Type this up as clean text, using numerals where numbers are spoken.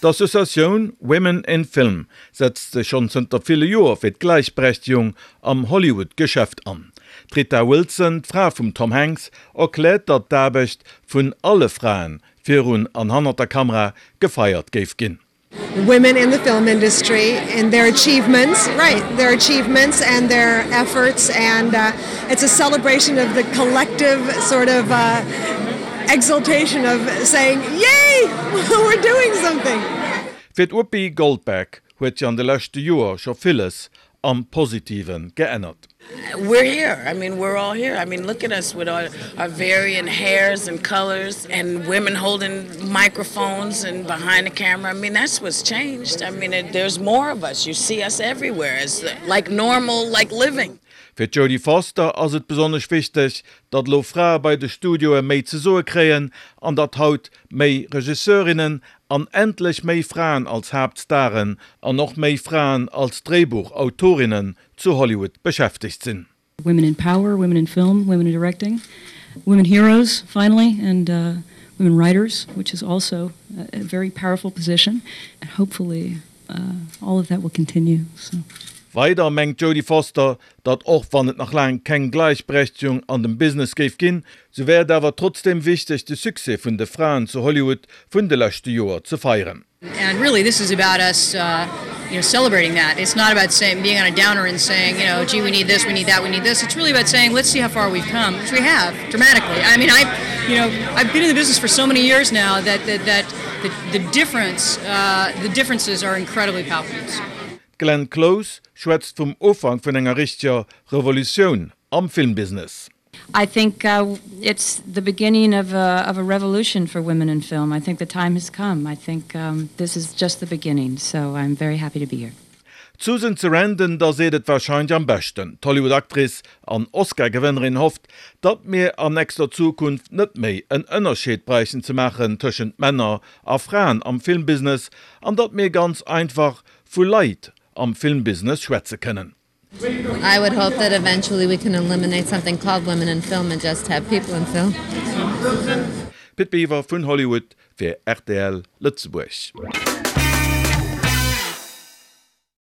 D'Associatioun Women in Film setzt sech schonn zënter ville Joer fir d'Gläichberechtegung am Hollywood-Geschäft an. D'Rita Wilson, d'Fra vum Tom Hanks, erkläert, datt d'Aarbecht vun alle Fraen virun an hannert der Kamera gefeiert géif ginn. Women in the film industry and their achievements, right, their achievements and their efforts and it's a celebration of the collective sort of exultation of saying, Yay! We're doing something! Fir d'Whoopi Goldberg huet sech an de leschte Joer scho villes am Positive geännert. We're here, I mean we're all here, I mean look at us with our our varying hairs and colors and women holding microphones and behind the camera, I mean that's what's changed, I mean there's more of us, you see us everywhere as like normal like living. Fir d'Jodie Foster ass et besonnesch wichteg, datt elo Frae bei de Studioe méi ze soe kréien an datt haut méi Regisseurinnen an endlech méi Fraen als Haaptstaren an och méi Fraen als Dréibuchautorinnen zu Hollywood beschäftegt sinn. Women in power, women in film, women in directing, women heroes finally and women writers, which is also a very powerful position and hopefully all of that will continue. So. Weider mengt d'Jodie Foster, datt och wann et nach laang keng Gläichberechtegung an dem Business géif ginn, sou wär et awer trotzdeem wichteg de Succès vun de Fraen zu Hollywood vun de leschte Joer ze feieren. And really this is about us you know celebrating that. It's not about saying being on a downer and saying you know gee we need this, we need that, we need this. It's really about saying let's see how far we've come, which we have dramatically. I mean I you know I've been in the business for so many years now that that that the the difference the differences are incredibly palpable. D'Glenn Close schwätzt vum Ufank vun enger richteger Revolutioun am Filmbusiness. I think it's the beginning of a of a revolution for women in film. I think the time has come. I think this is just the beginning. So I'm very happy to be here. D'Susan Sarandon, da seet et warscheinlech am beschten. D'Hollywood-Actrice an Oscar-Gewënnerin hofft, datt mir an nächster Zukunft net méi en Ënnerscheed bräichten ze maachen tëschent Männer a Fraen am Filmbusiness an datt mir ganz einfach vu Leit am Filmbusiness schwätze kënnen. I would hope that eventually we can eliminate something called women in film and just have people in film. Pit Biwer vun Hollywood fir rtl Lëtzebuerg.